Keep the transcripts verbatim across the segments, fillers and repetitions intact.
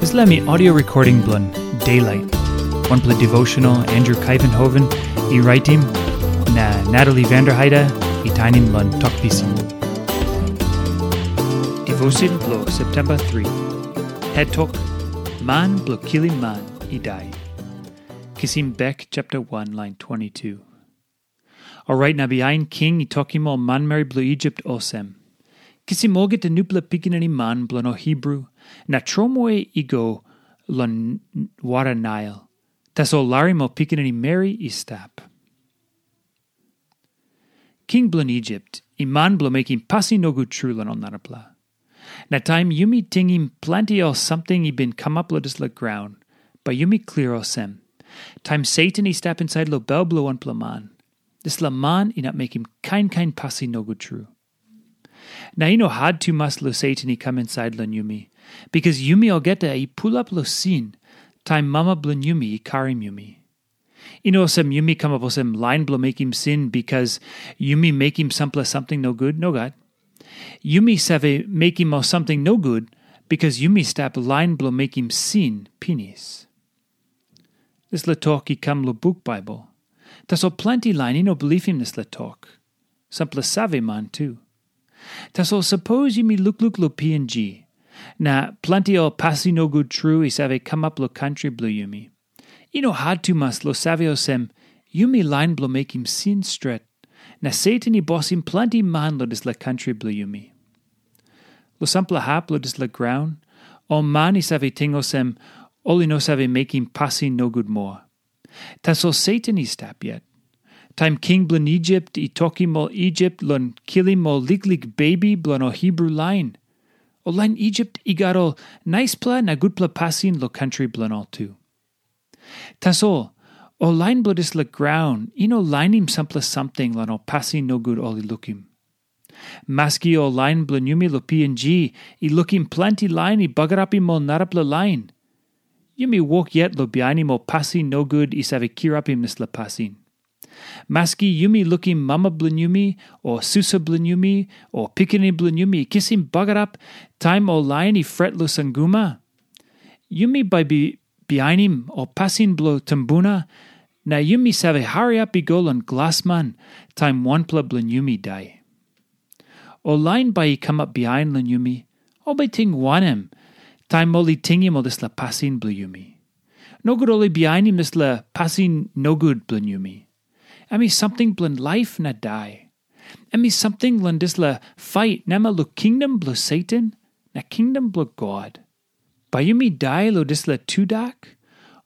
Dispela mi audio recording bilong Daylight. Wanpela devotional Andrew Kaivenhoven i raitim, na Natalie Vanderheide i tainim long Tok Pisin. Devotion bilong September three. Het tok, Man bilong kilim man i dai. Kisim bek chapter one line twenty-two. Orait na bihain king i tokim ol manmeri bilong Isip olsem, kisim olgeta nupela pikinini man bilong ol Hibru, na tromoi i go long wara Nail. Tasol larim ol pikinini meri i stap. King bilong Isip i man bilong mekim pasin nogut tru long ol narapela. Na taim yumi tingim planti ol samting i bin kamap long dispela graun, bai yumi klia olsem, taim Satan i stap insait long bel bilong wanpela man, dispela man inap mekim kain kain pasin nogut tru. Na i no hat tumas long Satan i kam insait long yumi, bikas yumi olgeta i pulap long sin taim mama bilong yumi i karim yumi. I no olsem yumi kamap olsem lain bilong mekim sin bikas yumi mekim sampela samting nogut, nogat. Yumi save mekim ol samting nogut bikas yumi stap lain bilong mekim sin pinis. Dispela tok i kam long buk Baibel. Tasol planti lain i no bilipim dispela tok. Sampela save man tu. Tasol sapos yumi lukluk long P N G, na planti ol pasin nogut tru i save kamap long kantri bilong yumi. I no hat tumas long save olsem, yumi lain bilong mekim sin stret, na Satan i bosim planti man long dispela kantri bilong yumi. Long sampela hap long dispela graun, ol man i save ting olsem, ol i no save mekim pasin nogut moa. Tasol Satan i stap yet. Taim king bilong Isip i tokim ol Isip long kilim ol liklik bebi bilong ol Hibru lain, ol lain Isip i gat ol naispela na gutpela pasin long kantri bilong ol tu. Tasol ol lain bilong dispela graun i no lainim sampela samting long ol pasin nogut ol i lukim. Maski ol lain bilong yumi long P N G i lukim planti lain i bagarapim ol narapela lain, yumi wok yet long bihainim ol pasin nogut i save kirapim dispela pasin. Maski yumi lukim mama bilong yumi, o susa bilong yumi, o pikinini bilong yumi i kisim bagarap taim ol lain i fret long sanguma, yumi bai bi bihainim ol pasin bilong tumbuna, na yumi save hariap i go long glasman taim wanpela bilong yumi dai. Ol lain bai i kamap bihain long yumi, ol bai ting wanem taim ol i tingim ol dispela pasin bilong yumi? Nogut ol i bihainim dispela pasin nogut bilong yumi. Em i samting bilong laip na dai. Em i samting long dispela pait namel long kingdom bilong Satan na kingdom bilong God. Bai yumi dai long dispela tudak,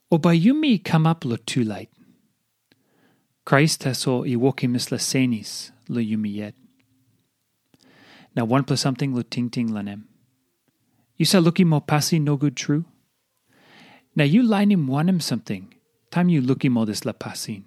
o bai yumi kamap long tulait? Krais tasol i wokim dispela senis long yumi yet. Na wanpela samting long tingting long em. Yu save lukim ol pasin nogut tru? Na yu lainim wanem samting taim yu lukim ol dispela pasin?